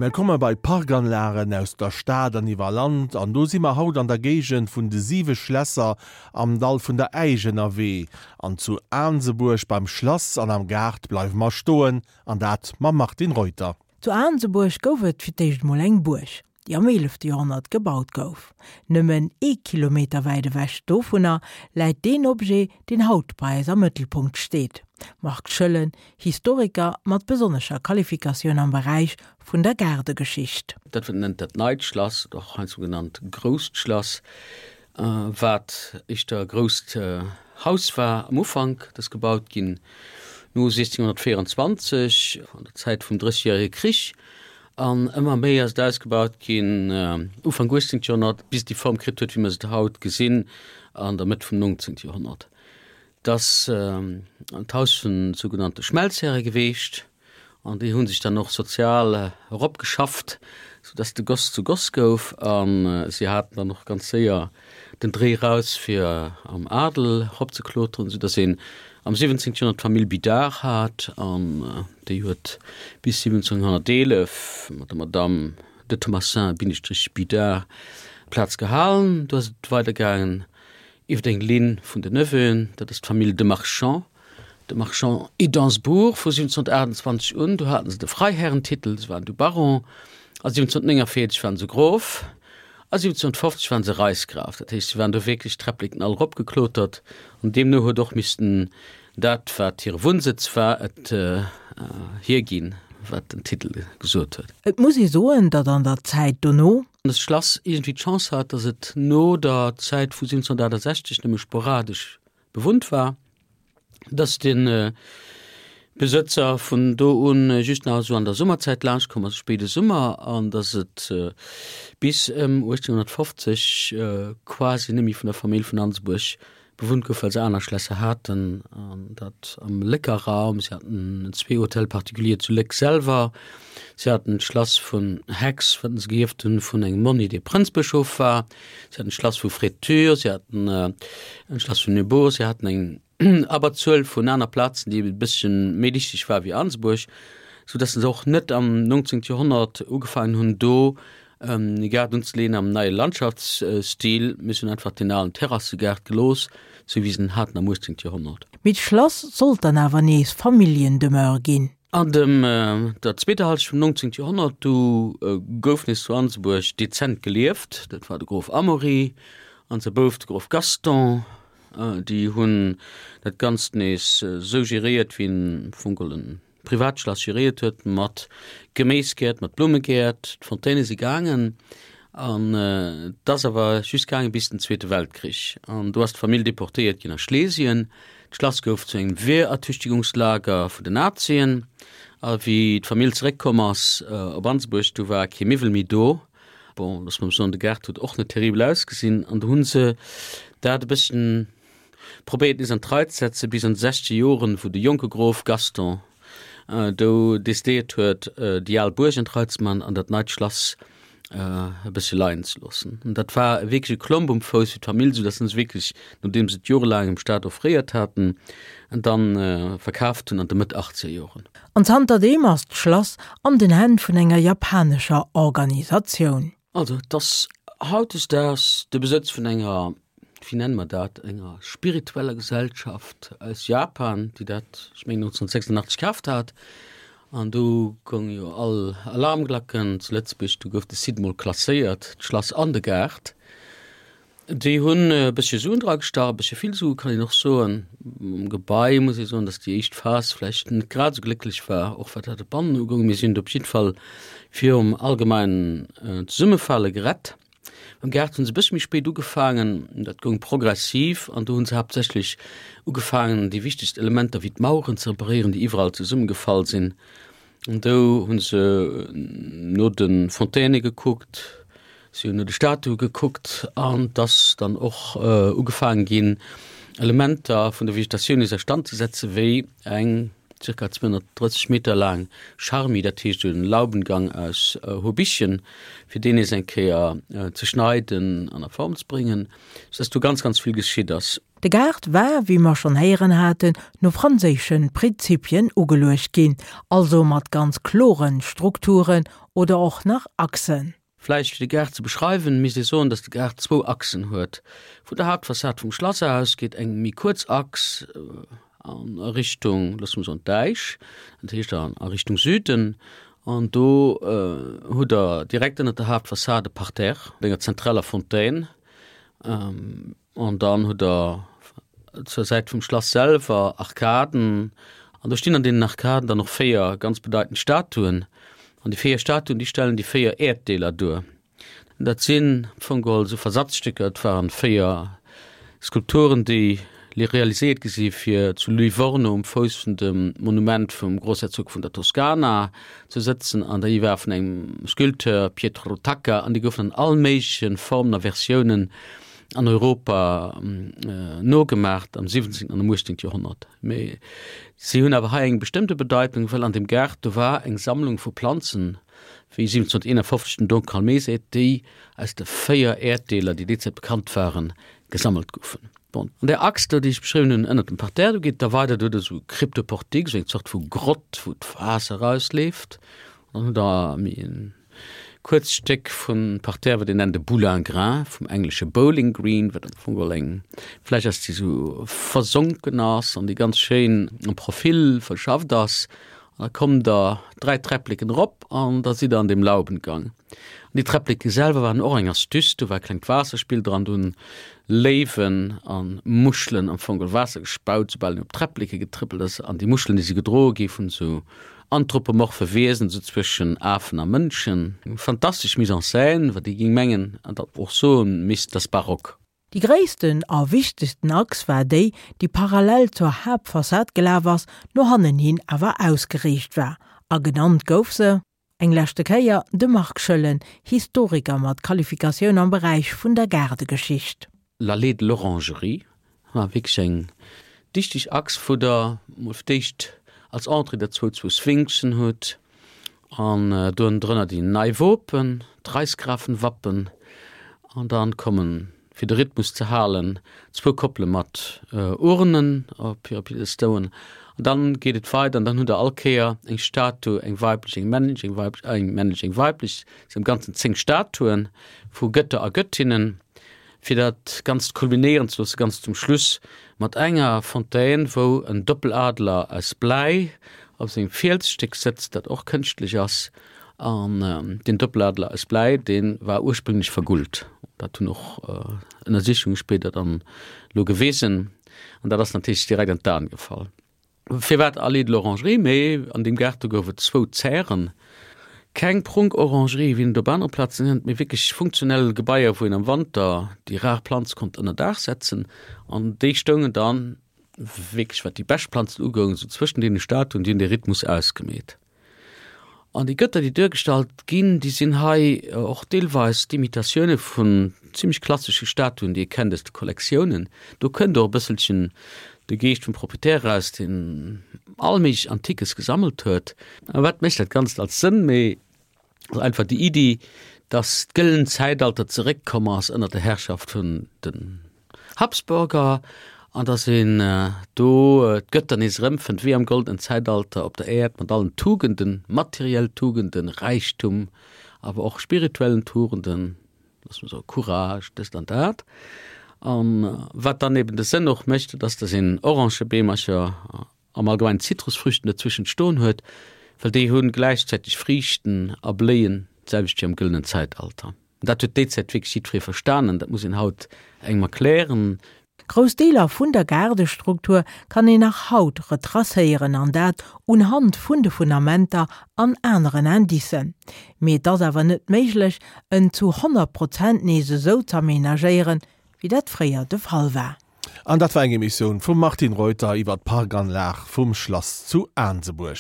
A mir komme bei d'Parkanlagen aus der Stad an iwwer Land an do si mer haut an der Géigend vun de siwe Schlässer am Dall vun der Äisch ënnerwee. An zu Aansebuerg beim Schlass an am Gaart bleiwe mer stoen an dat mam Martine Reuter. Zu Aansebuerg gouf et fir d'éischt mol eng Buerg, déi am eelefte Joerhonnert gebaut gouf. Nëmmen ee Kilometer wäit ewech dovunner läit deen Objet, deen haut bei eis am Mëttelpunkt steet. Marc Schoellen, Historiker mat besonnescher Qualifikatioun am Beräich vun der Gaardegeschicht. Dat wat een nennt dat neit Schlass, oder och heiansdo genannt grousst Schlass, wat éischter e grousst Haus war am Ufank, dat ass gebaut ginn no 1624, an der Zäit vum Drëssegjärege Krich, an ëmmer méi ass et ausgebaut ginn Ufank 18. Joerhonnert, bis et déi Form kritt huet, wéi mer se haut gesinn, an der Mëtt vum 19. Joerhonnert. Et ass d'Haus vun sougenannte Schmelzhäre geweecht. An déi hu sech dann och sozial eropgeschafft, soudass de Goss zu Goss gouf. A si haten dann och ganz séier den Dréi raus, fir am Adel eropzekloteren, soudass een am 17. Joerhonnert d'Famill Bidard hat. An déi huet bis 1711 mat der Madamm de Thomassin Bindestrich Bidard d'Plaz gehalen. Du ass et weidergaangen iwwer eng Linn vun den Neveuen, dat ass d'Famill de Marchand. De Marchand et d'Ansbourg vu 1728 un, do haten se de Freiherrentitel, se waren du Baron, a 1749 waren se Grof, a 1750 waren se Reichsgraf. Dat heescht, se waren do wierklech d'Träppleken all eropgeklotert an deemno huet och missten dat, wat hire Wunnsëtz war, et hierginn, wat den Titel gesot huet. Et muss ee soen, datt an der Zäit dono. Dëst Schlass iergendwéi d'Chance hat, datt et no der Zäit vu 1768 nëmme sporadesch bewunnt war, dass de Besëtzer vun do un just nach esou an der Summerzäit laanscht komm ass, spéide Summer, an dass et bis ëm 1850 quasi net méi vun der Famill vun Ansebuerg bewunnt gouf, well se aner Schlässer haten, an dat am Lécker Raum. Si haten zwee Hôtels particuliers zu Léck selwer, si haten d'Schlass vun Hex, wat se geierft hunn vun engem Monni, dee Prënzbëschof war. Si haten d'Schlass vu Fraiture, si haten en Schlass vun Neubourg, si haten eng Abberzuel vun aner Plazen, déi e bësschen méi dichteg war wéi Ansebuerg, sou dass se och net am 19. Joerhonnert ugefaangen hunn, do e Gaart unzeleeën am neie Landschaftsstil, mee se hunn einfach deen alen Terrassegaart gelooss, sou wéi se en haten am 18. Joerhonnert. Mee d'Schlass sollt dann awer nees Familljendemeure ginn. An dem der zweeter Halschent vum 19. Joerhonnert du gouf nees zu Ansebuerg dezent gelieft. Dat war de Grof Amaury an säi Bouf de Grof Gaston. Déi hunn dat Ganzt nees esou geréiert, wéi en am Fong geholl e Privatschlass geréiert huet, mat Geméisgäert, mat Blummegäert. D'Fontaine si gaangen an et ass awer just gaange bis den Zweete Weltkrich. An do ass d'Famill deportéiert ginn a Schlesien. D'Schlass gouf zu engem Wehrertüchtigungslager vun den Nazien. A wéi d'Famill zeréckkomm ass op Ansebuerg, du war kee Miwwel méi do. Bon, loosse mer soen, de Gaart huet och net terribel ausgesinn. An du hu se dat e bësschen probéiert nees an d'Rei ze setzen, bis an de sechzeger Joren, wou de jonke Grof Gaston do decidéiert huet, déi al Buerg an d'Rei ze man an dat neit Schlass e bëssche leien ze loossen. An dat war wierklech e Klomp um Fouss fir d'Famill, soudatt se wierklech, nodeem se et jorelaang dem Staat offréiert haten, dann verkaaft hunn an de Mëtt achtzeger Joren. An zanterdeem ass d'Schlass an den Hänn vun enger japanescher Organisatioun. Also et ass hautdesdaags de Besëtz vun enger, wéi nenne mer dat, enger spiritueller Gesellschaft aus Japan, déi dat, ech mengen 1986 kaaft hat. An du goung jo all Alarmglacken zu Lëtzebuerg, du gouf de Site mol klasséiert, d'Schlass an de Gaart. Déi hunn e bëssche Suen dra gestach, e bëssche vill Sue kann een och soen. Um Gebai muss ee soen, datt déi éischt Phas vläicht net grad esou glécklech war, och wat dat Bannen ugoung. Mee si hunn et op jiddwer Fall virum allgemeinen Zesummefale gerett. Mam Gaart hu se e bëssche méi spéit ugefaangen, dat goung progressiv an do hu se haaptsächlech ugefaangen, déi wichtegst Elementer wéi d'Maueren ze reparéieren, déi iwwerall zesummegefall sinn. An do hu se no de Fontaine gekuckt, si hunn no de Statue gekuckt an et ass dann och ugefaange ginn, Elementer vun der Vegetatioun nees a Stand ze setzen, wéi eng. Circa 230 Meter laang Charmi, dat heescht en Laubengang aus Hobichen, fir deen nees eng Kéier ze schneiden an a Form ze bréngen, sou dass do ganz, ganz vill geschitt ass. De Gaart war, wéi mer schonn héieren haten, no franséische Prinzipien ugeluecht ginn, also mat ganz kloren Strukturen oder och nach Achsen. Vläicht fir de Gaart ze beschreiwen, misst ee soen, datt de Gaart zwou Achsen huet. Vun der Haaptfassad vum Schlass aus geet eng méi kuerz Achs a Richtung, loosse mer soen, d'Äisch, dat heescht a Richtung Süden. An do hutt Der direkt ënnert der Haaptfassad e Parterre mat enger zentraler Fontaine. An dann hutt Der zur Säit vum Schlass selwer Arkaden. An do stinn an deenen Arkaden dann och 4 ganz bedeitend Statuen. An déi 4 Statuen, déi stellen déi 4 Äerddeeler duer. Dat sinn am Fong geholl esou Versatzstécker. Et waren 4 Skulpturen, déi realiséiert gi si fir zu Livorno um Fouss vun dem Monument vum Grossherzog vun der Toskana ze sëtzen. An déi war vun engem Sculpteur, Pietro Tacca, an déi goufen an all méigleche Formen a Versiounen an Europa nogemacht am 17. an am 18. Joerhonnert. Mee si hunn awer hei eng bestëmmte Bedeitung, well an dem Gaart do war eng Sammlung vu Planzen, wéi 1751 den Don Calmé seet, déi aus de 4 Äerddeeler, déi déi Zäit bekannt waren, gesammelt goufen. Bon, an där Achs do, déi ech beschriwwen hunn, ënnert dem Parterre, do geet et da weider, do huet e sou Cryptoportique, sou eng Zort vu Grott, wou d'Waasser erausleeft. An dann hutt Der méi en Kuerzt Stéck vum Parterre, wat een nennt e Boulingrin, vum englesche Bowling Green, wat am Fong geholl eng Fläch ass, déi sou versonken ass an déi ganz schéin am Profil verschafft ass. An da kommt der 3 Träppleken erop an da sidd der an deem Laubengang. An déi Träppleke selwer waren och eng Astuce, do war e klengt Waasserspill dran, do hunn Léiwen a Muschelen am Fong geholl Waasser gespaut, soubal een op d'Träppleke getrëppelt ass. An déi Muschelen, déi si gedroe gi vun esou Anthropomorphe Wiesen, esou zwëschen Afen a Mënschen. Eng fantastesch Mise en scène, wat ee géing mengen an dat och soe misst, dass barock. Déi gréissten a wichtegsten Achs war déi, déi parallel zur Haaptfassad gelaf ass, no hannen hin awer ausgeriicht war, a genannt gouf se, eng leschte Kéier, de Marc Schoellen, Historiker mat Qualifikatioun am Beräich vun der Gaardegeschicht. L'Allée de l'Orangerie war wierklech eng dichteg Achs, wou der mol fir d'éischt als Entrée der zwou zwou Sphinxen hutt an do ënnendrënner déi nei Wopen, d'Reichsgrafenwappen, an dann kommen, fir de Rhythmus ze halen, zwou Koppele mat Urnen op hire Piedestauen an dann geet et weider an dann hutt der all Kéier eng Statue, eng weiblech, eng männlech, eng weiblech, eng männlech, eng weiblech, et sinn am Ganzen 10 Statuen vu Gëtter a Gëttinnen. Fir dat Ganzt kulminéieren ze loossen, ganz zum Schluss mat enger Fontaine, wou en Doppeladler aus Bläi op sengem Fielsstéck sëtzt, dat och kënschtlech ass. An deen Doppeladler aus Bläi, dee war ursprünglech vergullt. Dat hunn och Ënnersichunge spéider dann elo gewisen. An dat ass natierlech direkt an d'Aen gefall. Firwat Allée de l'Orangerie? Mee an deem Gaart do gouf et zwou Zären. Keng Prunk-Orangerie wéi een et op anere Plazen kennt, mee wierklech funktionell Gebaier, wou een am Wanter déi rar Planz konnt ënner Daach setzen. An déi stoungen dann wierklech, wat déi bescht Planzen ugoung, esou zwëschen deene Statuen, déi hunn dee Rhythmus ausgemeet. An déi Gëtter, déi duergestallt ginn, déi sinn hei och deelweis d'Imitatioune vun zimmlech klassesche Statuen, déi ee kennt aus de Kollektiounen. Do kënnt och e bësselchen de Geescht vum Proprietär eraus, deen all méiglech Antiques gesammelt huet. A wat mécht dat Ganzt als Sënn? Mee ass einfach déi Iddi, dass d'gëllent Zäitalter zeréckkomm ass ënner der Herrschaft vun den Habsburger an dass een do d'Gëtter nees erëmfënnt, wéi am goldenen Zäitalter op der Äerd, mat allen Tugenden, materiell Tugenden, Räichtum, awer och spirituellen Tugenden, loosse mer soe Courage, dëst an dat. A wat dann eben de Sënn och mécht, dat ass, dass een Orangebeemercher am Allgemeinen Zitrusfrüchten dozwëschent stoen huet, well déi hu gläichzäiteg Friichten a bléien d'selwecht wéi am gëllenen Zäitalter. Dat huet déi Zäit wierklech jiddweree verstanen, dat muss een haut engem erklären. Grouss Deeler vun der Gaardestruktur kann een nach haut retracéieren, an dat unhand vun de Fundamenter an aneren Indicen. Mee et ass awer net méiglech, en zu 100 Prozent nees esou z'aménagéieren, wéi dat fréier de Fall war. An dat war eng Emissioun vum Martine Reuter iwwer d'Parkanlag vum Schlass zu Aansebuerg.